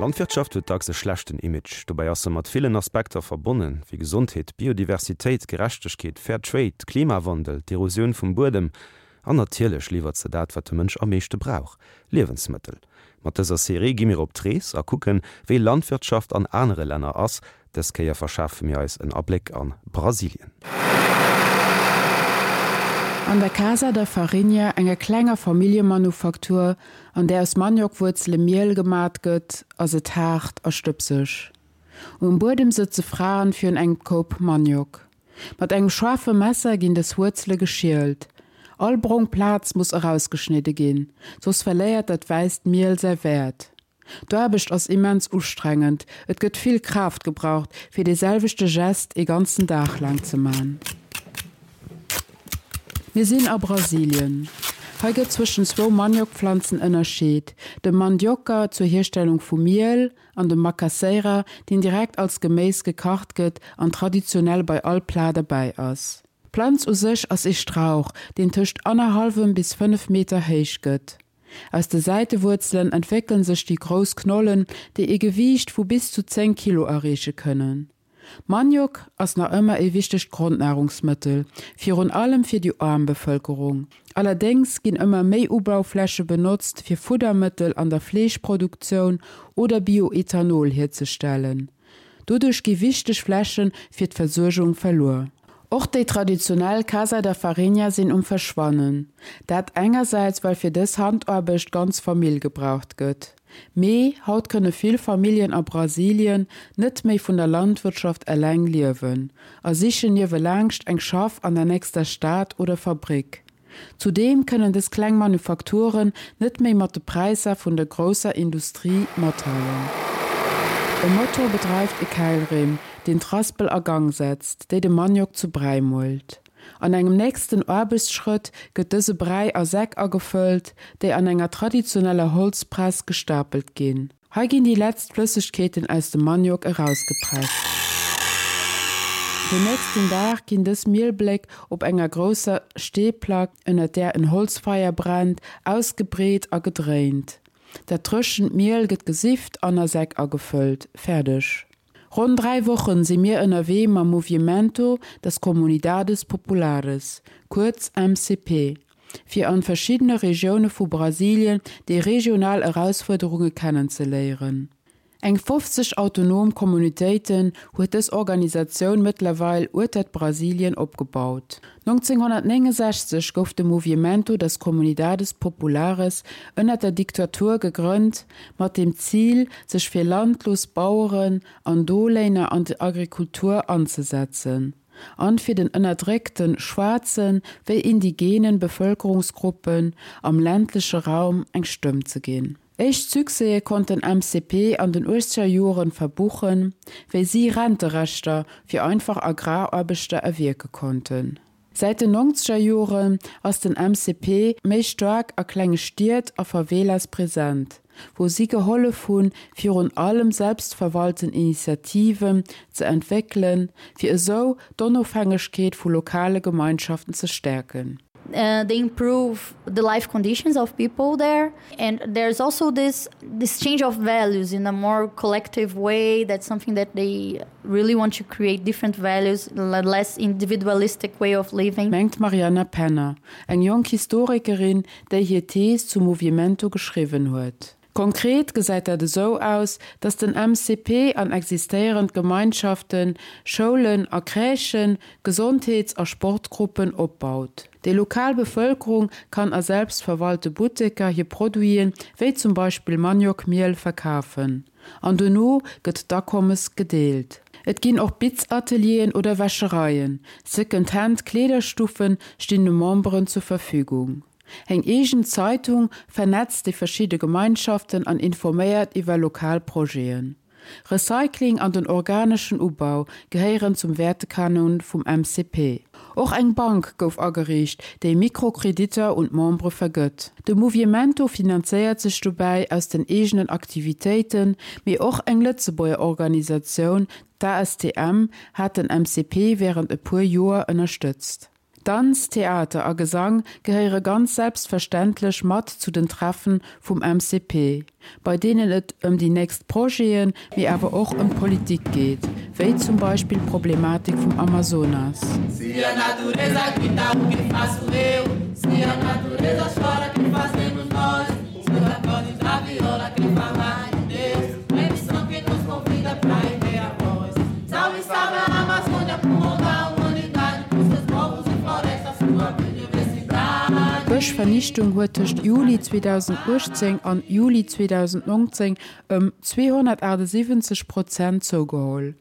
Landwirtschaft huet dacks e schlechten Image. Dobäi ass se mat villen Aspekter verbonnen, wéi Gesondheet, Biodiversitéit, Gerechtegkeet, Fair Trade, Klimawandel, d'Erosioun vum Buedem. An natierlech liwwert se dat, wat de Mënsch am meeschte brauch, Liewensmëttel. Mat dëser Serie gi mir op d'Rees a kucken, wéi Landwirtschaft an anere Länner ass. Dës Kéier verschafe mir eis en Abléck a Brasilien. An der Casa da Farinha, enger klenger Familljemanufaktur, an där aus Maniokwuerzele Miel gemat gëtt, ass et haart a stëbseg. Um Buedem sëtze Fraen virun engem Koup Maniok. Mat engem schaarfe Messer ginn dës Wuerzele geschielt. All brong Plaz muss erausgeschnidde ginn, soss verléiert dat wäisst Miel säi Wäert. D'Aarbecht ass immens ustrengend, et gëtt vill Kraaft gebraucht, fir dee selwechte Gest ee ganzen Dag laang ze man. Mir sinn a Brasilien. Hei gëtt zwëschen zwou Maniokpflanzen ënnerscheet, dem Mandioca zur Hierstellung vu Miel an dem Macaxeira, deen direkt als Geméis gekacht gëtt an traditionell bei all Plat derbäi ass. D'Planz u sech ass ee Strauch, deen tëscht annerhallwem bis 5 Meter héich gëtt. Aus de Säitewuerzelen entwéckelen sech déi grouss Knollen, déi ee Gewiicht vu bis zu 10 Kilo erreeche kënnen. Maniok ass nach ëmmer ee wichtegt Grondnahrungsmëttel, virun allem fir déi aarm Bevëlkerung. Allerdéngs ginn ëmmer méi Ubaufläche benotzt fir Fuddermëttel an der Fleeschproduktioun oder Bioethanol hierzestellen. Doduerch gi wichteg Fläche fir d'Versuergung verluer. Och déi traditionell Casa da Farinha sinn um Verschwannen. Dat engersäits well fir dës Handaarbecht d'ganz Famill gebraucht gëtt. Mee haut kënne vill Familljen a Brasilien net méi vun der Landwirtschaft eleng liewen a sichen niewelaangscht eng Schaff an der nächster Stad oder Fabrick. Zudeem kënnen dës kleng Manufakturen net méi mat de Präisser vun der grousser Industrie mathalen. E Motor bedreift e Käilrim, deen d'Raspel a Gang setzt, déi de Maniok zu Bräi muelt. An engem nächsten Aarbechtsschrëtt gëtt dëse Bräi a Säck agefëllt, déi an enger traditioneller Holzpress gestapelt ginn. Hei ginn déi letzt Flëssegkeeten aus dem Maniok erausgepresst. Den nächsten Dag ginn dës Mielbléck op enger grousser Steeplack, ënnert där en Holzfeier brennt, ausgebreet a gedréint. Dat dréchent Miel gëtt gesift an a Säck agefëllt. Fäerdeg! Ronn 3 Wochen si mir ënnerwee mam Moviemento das Comunidades Populares, kuerz MCP, fir an verschiddene Regioune vu Brasilien déi regional Erausfuerderunge kennenzeléieren. Eng 50 autonom Communautéiten huet dës Organisatioun mëttlerweil uetert Brasilien opgebaut. 1969 gouf de Moviemento das Comunidades Populares ënnert der Diktatur gegrënnt, mat dem Zil, sech fir landlos Baueren an Doléiner an der Agrikultur anzesetzen an fir den ënnerdréckten schwaarzen wéi indigenen Bevëlkerungsgruppen am ländleche Raum eng Stëmm ze ginn. Éischt Succèse konnt den MCP an den uechzeger Joren verbuchen, wéi si Renterechter fir einfach Agraraarbechter erwierke konnten. Säit den nonzeger Joren ass den MCP méi staark a klenge Stied a Favelas present, wou si gehollef hunn, virun allem selbstverwalten Initiativen ze entwéckelen, fir esou d'Onofhängegkeet vu lokale Gemeinschaften ze stäerken. They improve the life conditions of people there and there's also this this change of values in a more collective way that's something that they really want to create different values less individualistic way of living. Mengt d'Marianna Penner, eng jonk Historikerin, déi hir Thees zum Moviemento geschriwwen huet. Konkret gesäit dat esou aus, datt den MCP an existéierend Gemeinschaften, Schoulen a Crèchen, Gesondheets a Sportgruppen opbaut. Déi lokal Bevëlkerung kann a selbstverwalte Butteker hir Produiten, wéi zum Beispill Maniokmiel, verkafen an dono gëtt d'Akommes gedeelt. Et ginn och Bitzatelieren oder Wäschereien, Second-Hand Kleederstuffen stinn de Memberen zur Verfügung. Eng eegen Zeitung vernetzt déi verschidde Gemeinschaften an informéiert iwwer lokal Projeten. Recycling an den organeschen Ubau gehéieren zum Wäertekanon vum MCP. Och eng Bank gouf ageriicht, déi Mikrokreditter un d'Membere vergëtt. De Moviemento finanzéiert sech dobäi aus den eegenen Aktivitéiten, mee och eng Lëtzebuerger Organisatioun, d'ASTM, hat den MCP wärend e puer Joer ënnerstëtzt. Danz, Theater a Gesang gehéiere ganz selbstverständlech mat zu den Treffen vum MCP, bei deenen et ëm déi nächst Projeten, mee awer och ëm d'Politik geet, wéi zum Beispill d'Problematik vum Amazonas. Se a natureza grita o que faço eu Se a natureza chora que fazemos nós Se os acordes da viola que fala de Deus É que nos convida pra erguer a voz Salve, salve a Amazônia, pulmão da humanidade Com seus povos e florestas, sua biodiversidade D'Bëschvernichtung huet tëscht Juli 2018 an Juli 2019 ëm 278 Prozent zougeholl.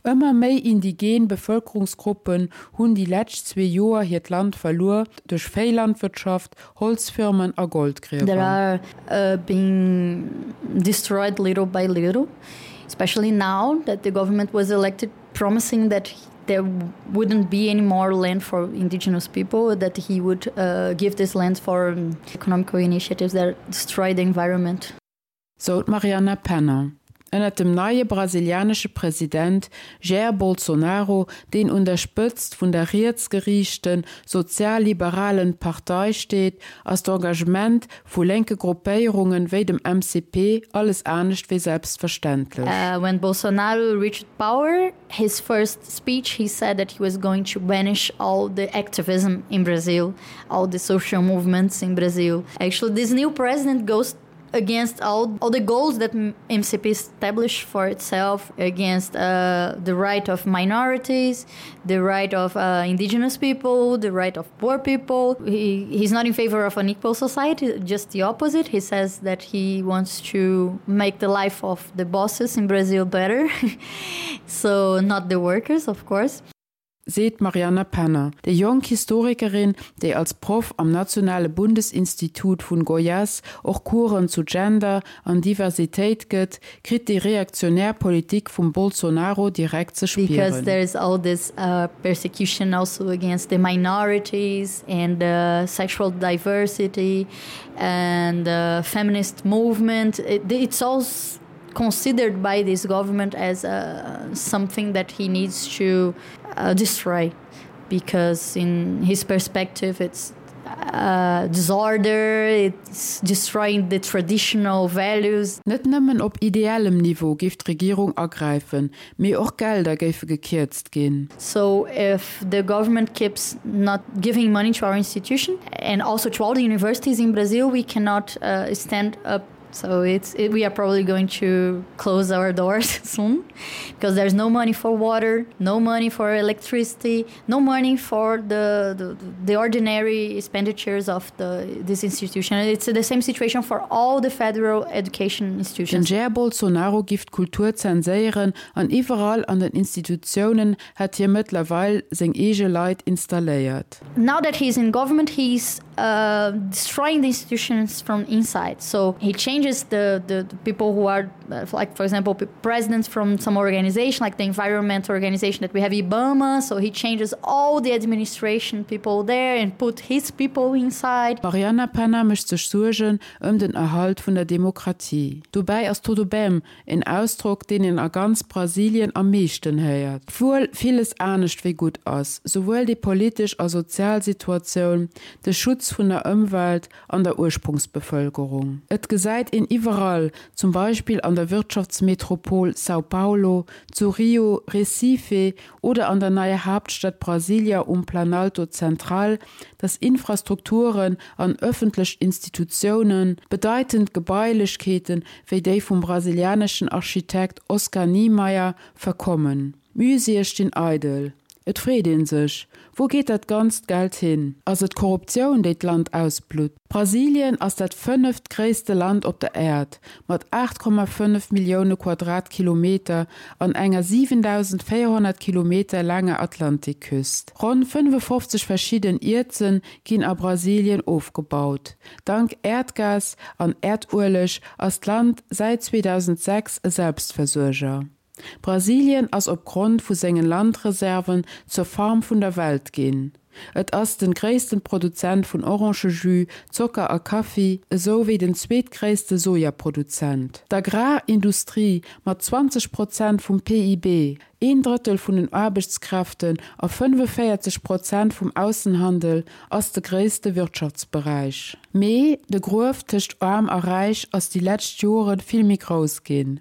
Ëmmer méi indigen Bevëlkerungsgruppen hunn déi lescht zwee Joer hiert Land verluer duerch Véilandwirtschaft, Holzfirmen a That Goldgriewer. are being destroyed little by little, especially now that the government was elected promising that there wouldn't be any more land for indigenous people, that he would uh, give this land for economical initiatives that destroy the environment. Sou d'Mariana Penner. Ënnert dem neie brasilianesche President Jair Bolsonaro, deen un der Spëtzt vun der rietsgeriichten, sozialliberalen Partei steet, ass d'Engagement vu lénke Gruppéierungen wéi dem MCP alles anescht wéi selbstverständlech. When Bolsonaro reached power, his first speech he said that he was going to banish all the activism in Brazil, all the social movements in Brazil. Actually, this new president goes against all, all the goals that MCP established for itself against uh, the right of minorities, the right of uh, indigenous people, the right of poor people. He, he's not in favor of an equal society, just the opposite. He says that he wants to make the life of the bosses in Brazil better. so not the workers, of course. Seet d'Marianna Penner. Déi jonk Historikerin, déi als Proff am Nationale Bundesinstitut vun Goiás och Coursen zu Gender an Diversitéit gëtt, kritt déi reaktionär Politik vum Bolsonaro direkt ze Because spieren. there is all this persecution also against the minorities and the sexual diversity and the feminist movement. It's all considered by this government as uh, something that he needs to uh, destroy because in his perspective it's uh, disorder, it's destroying the traditional values. Net nëmmen op ideellem Niveau géif d'Regierung agräifen, mee och Gelder géife gekierzt ginn. So if the government keeps not giving money to our institution and also to all the universities in Brazil, we cannot uh, stand up So it's it, we are probably going to close our doors soon because there's no money for water, no money for electricity, no money for the, the, the ordinary expenditures of the, this institution. It's the same situation for all the federal education Den institutions. Jair Bolsonaro giff d'Kultur zenséieren an iwwerall an den Institutiounen hätt hie mëttlerweil seng eege Leit installéiert. Now that he's in government, he's uh, destroying the institutions from inside. So he changes the, the, the people who are uh, like for example presidents from some organization like the environment organization that we have Ibama, so he changes all the administration people there and put his people inside. D'Marianna Penna mécht sech Suergen ëm den Erhalt vun der Demokratie. Dobäi ass Tudo Bem En Ausdrock, deen een a ganz Brasilien am meeschten héiert. Obwuel villes anescht wéi gutt ass, souwuel déi politesch a sozial Situatioun, de Schutz vun der Ëmwelt an der Ursprungsbevëlkerung. Et gesäit een iwwerall, zum Beispill an der Wirtschaftsmetropol São Paulo, zu Rio, Recife oder an der neier Haaptstad Brasilia um Planalto Central, dass Infrastrukturen an ëffentlech Institutiounen, bedeitend Gebailechkeeten wéi déi vum brasilianeschen Architekt Oscar Niemeyer, verkommen. Muséeë stinn eidel. Et freet ee sech, Wou geet dat ganzt Geld hin? Ass et d'Korruptioun, déi d'Land ausblutt? Brasilien ass dat fënneft gréisste Land op der Äerd, mat 8,5 Millioune Quadratkilometer an enger 7.400 Kilometer laanger Atlantikküst. Ronn 55 verschidden Ierzen ginn a Brasilien ofgebaut. Dank Äerdgas an Äerdueleg ass d'Land säit 2006 e Selbstversuerger. Brasilien ass op Grond vu sengen Landreserven zur Farm vun der Welt ginn. Et ass den gréissten Produzent vun Orangejus, Zocker a Kaffi, esou wéi den zweetgréisste Sojaproduzent. D'Agrarindustrie mat 20 Prozent vum PIB, een Drëttel vun den Aarbechtskräften a 45 Prozent vum Aussenhandel ass de gréisste Wirtschaftsberäich. Mee de Gruef tëscht Aarm a Räich ass déi lescht Jore vill méi grouss ginn.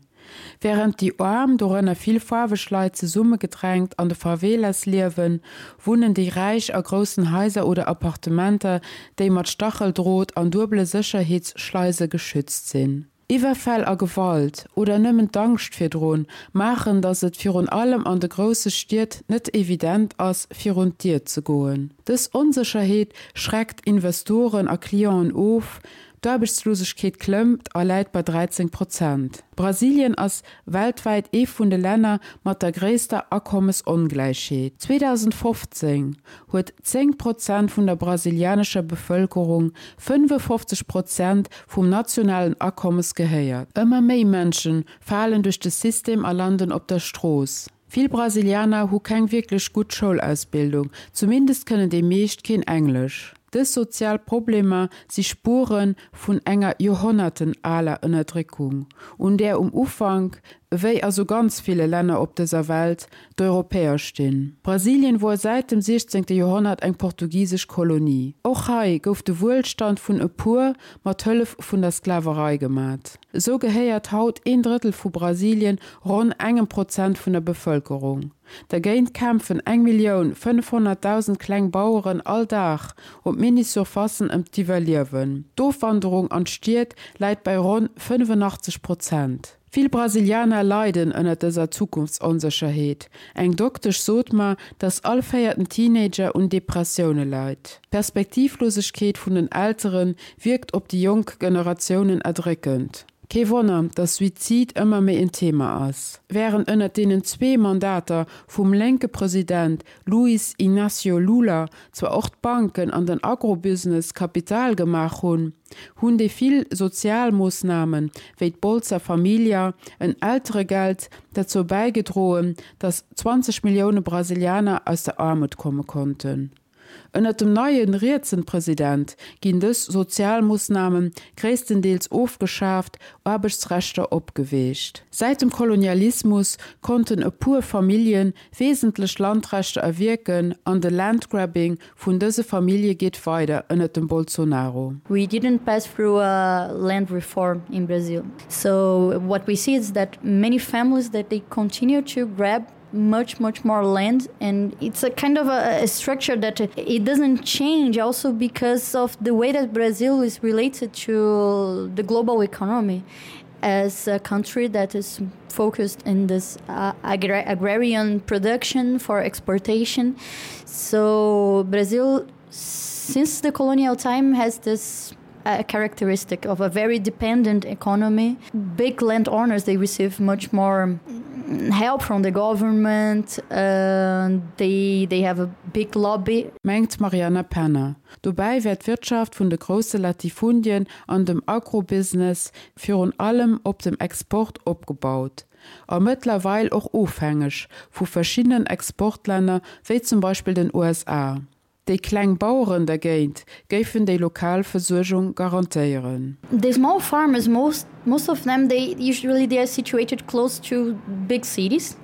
Wärend déi Aarm, dorënner vill faarweg Leit, zesummegedrängt an de Favelas liewen, wunnen déi Räich a groussen Haiser oder Appartementer, déi mat Stacheldrot an duebele Sécherheetsschleise geschützt sinn. Iwwerfäll a Gewalt, oder nëmmen d'Angscht virdrun, maachen, datt et virun allem an de grousse Stied net evident ass, virun d'Dier ze goen. Dës Onsécherheet schreckt Investoren a Clienten of, D'Aarbechtslosegkeet klëmmt a läit bei 13 Prozent. Brasilien ass weltwäit ee vun de Länner mat der gréisster Akommesongläichheet. 2015 huet 10 Prozent vun der brasilianescher Bevëlkerung 55 Prozent vum nationalen Akommes gehéiert. Ëmmer méi Mënsche falen duerch de System a landen op der Strooss. Vill Brasilianer hu keng wierklech gutt Schoulausbildung, zumindest kënnen déi meescht keen Englesch. Dës sozial Problemer si Spuere vun enger Joerhonnerten aler Ënnerdréckung, un där um Ufank, ewéi a sou ganz ville Länner op dëser Welt, d'Europäer stinn. Brasilien wor säit dem 16. Joerhonnert eng portugisesch Kolonie. Och hei gouf de Wuelstand vun e puer mat Hëllef vun der Sklaverei gemat. Esou gehéiert haut een Drëttel vu Brasilien ronn engem Prozent vun der Bevëlkerung. Dergéint kämpfen 1.500.000 kleng Baueren all Dag op Mini-Surfacen ëm d'Iwwerliewen. D'Ofwanderung an d'Stied läit bei ronn 85 Prozent. Vill Brasilianer leiden ënner dëser Zukunftsonsécherheet. Eng Doktesch sot mer, dass all véierten Teenager un Depressioune leit. D'Perspektivlosegkeet vun den Eltere wierkt op déi jonk Generatiounen erdréckend. Kee Wonner, dass Suizid ëmmer méi en Thema ass. Wärend ënnert deenen zwee Mandater vum lénke President Luiz Inácio Lula zwar och d'Banken an den Agrobusiness Kapital gemaach hunn, hunn déi vill Sozialmoossnamen, wéi d'Bolsa Família, en Elteregeld, derzou bäigedroen, dass 20 Millioune Brasilianer aus der Aarmut komme konnten. Ënnert dem neie rietsen President ginn dës Sozialmoossname gréisstendeels ofgeschaaft, Aarbechtsrechter opgeweecht. Säit dem Kolonialismus konnten e puer Famillje wesentlech Landrechter erwierken an de Landgrabbing vun dëse Famillje geet weider ënnert dem Bolsonaro. We didn't pass through a land reform in Brazil. So what we see is that many families that they continue to grab much much more land and it's a kind of a, a structure that it doesn't change also because of the way that Brazil is related to the global economy as a country that is focused in this uh, agra agrarian production for exportation so Brazil since the colonial time has this a characteristic of a very dependent economy. Big landowners they receive much more help from the government uh, they, they have a big lobby. Mengt Mariana Penner. Dobäi wär d'Wirtschaft vun de grousse Latifundien an dem Agrobusiness virun allem op dem Export opgebaut a mëttlerweil och ofhängeg vu verschiddenen Exportlänner wéi zum Beispill den USA. Déi kleng Baueren dergéint géifen déi lokal Versuergung garantéieren. The small farmers, most most of them they usually they are situated close to big cities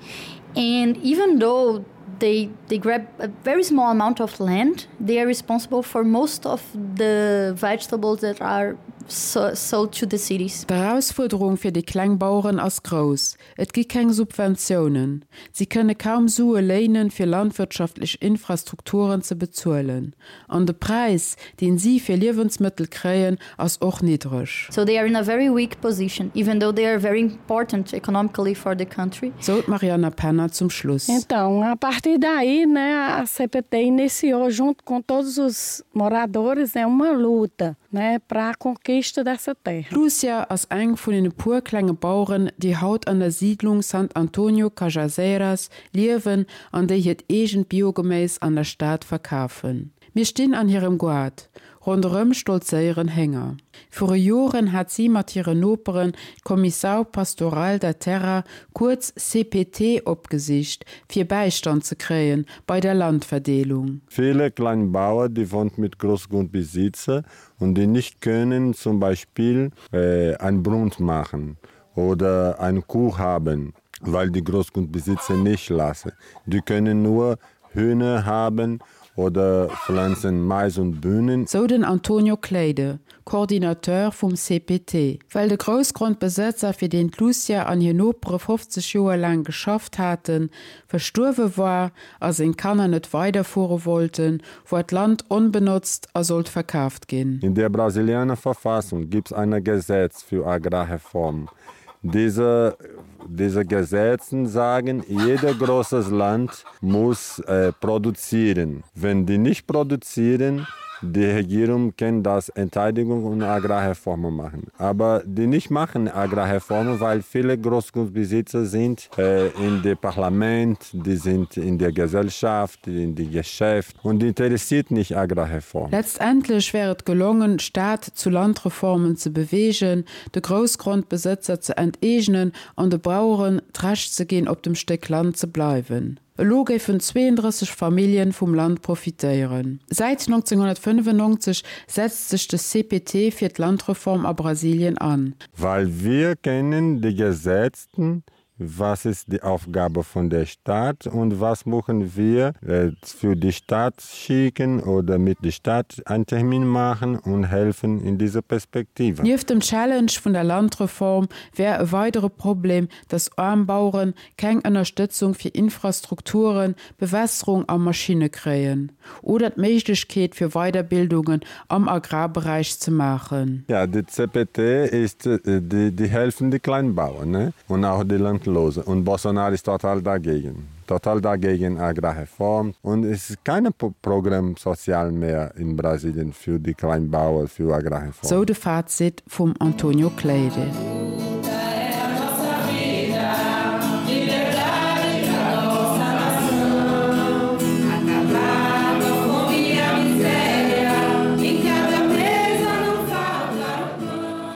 and even though they they grab a very small amount of land, they are responsible for most of the vegetables that are so, sold to the cities. D'Erausfuerderung fir déi kleng Baueren ass grouss. Et gi keng Subventiounen, si kënne kaum Sue léinen, fir landwirtschaftlech Infrastrukturen ze bezuelen. An de Präis, deen si fir Liewensmëttel kréien, ass och niddreg. So they are in a very weak position, even though they are very important economically for the country. Sou d'Marianna Penner zum Schluss. Então, a partir daí, né, a CPT iniciou junto com todos os moradores, né, uma luta. Né, para a conquista dessa terra. D'Lúcia ass eng vun den e puer klenge Baueren, déi haut an der Siidlung Sant Antonio Cajazeiras liewen an déi hiert eegent Biogeméis an der Stad verkafen. Mir stinn an hirem Goart. Ronderëm stolzéieren Hénger. Viru Joren hat si mat hiren Noperen d'Comissão Pastoral da Terra, kuerz CPT, opgesicht, fir Bäistand ze kréien bei der Landverdeelung. Viele Kleinbauer, die wohnt mit Großgrundbesitzer und die nicht können zum Beispiel ein Brunft machen oder eine Kuh haben, weil die Großgrundbesitzer nicht lassen. Die können nur Hühner haben oder pflanzen Mais und Bühnen. Sou den Antonio Cleide, Coordinateur vum CPT. Well de Groussgrondbesëtzer, fir deen d'Lucia an hir Nopere 50 Joer laang geschafft haten, verstuerwe war a seng Kanner net weiderfuere wollten, war d'Land onbenotzt a sollt verkaaft ginn. In der brasilianer Verfassung gibt's eine Gesetz für Agrarreform. Diese, diese Gesetzen sagen, jeder großes Land muss äh, produzieren. Wenn die nicht produzieren, die Regierung kann das Enteidigung und Agrarreformen machen. Aber die nicht machen Agrarreformen, weil viele Großgrundbesitzer sind äh, in dem Parlament, die sind in der Gesellschaft, in die Geschäft und die interessiert nicht Agrarreform. Letztendlech wär et gelongen, d'Stad zu Landreformen ze beweegen, de Groussgrondbesëtzer ze enteegnen an de Baueren d'Recht ze ginn, op dem Stéck Land ze bleiwen. Elo géifen 32 Familljen vum Land profitéieren. Säit 1995 setzt sech de CPT fir d'Landreform a Brasilien an. Weil wir kennen die Gesetzten, was ist die Aufgabe von der Stadt und was machen wir äh, für die Stadt schicken oder mit der Stadt einen Termin machen und helfen in dieser Perspektive. Nieft dem Challenge vun der Landreform wär e weidere Problem, datt aarm Bauere keng Ënnerstëtzung fir Infrastrukturen, Bewässerung a Maschinne kréien oder d'Méiglechkeet fir Weiderbildungen am Agrarberäich ze maachen. Ja, die CPT ist die, die helfen die Kleinbauern ne? und auch die Landlose. Und Bolsonaro ist total dagegen. Total dagegen Agrarreform. Und es ist kein Programm sozial mehr in Brasilien für die Kleinbauern, für Agrarreform. Sou de Fazit vum Antonio Cleide.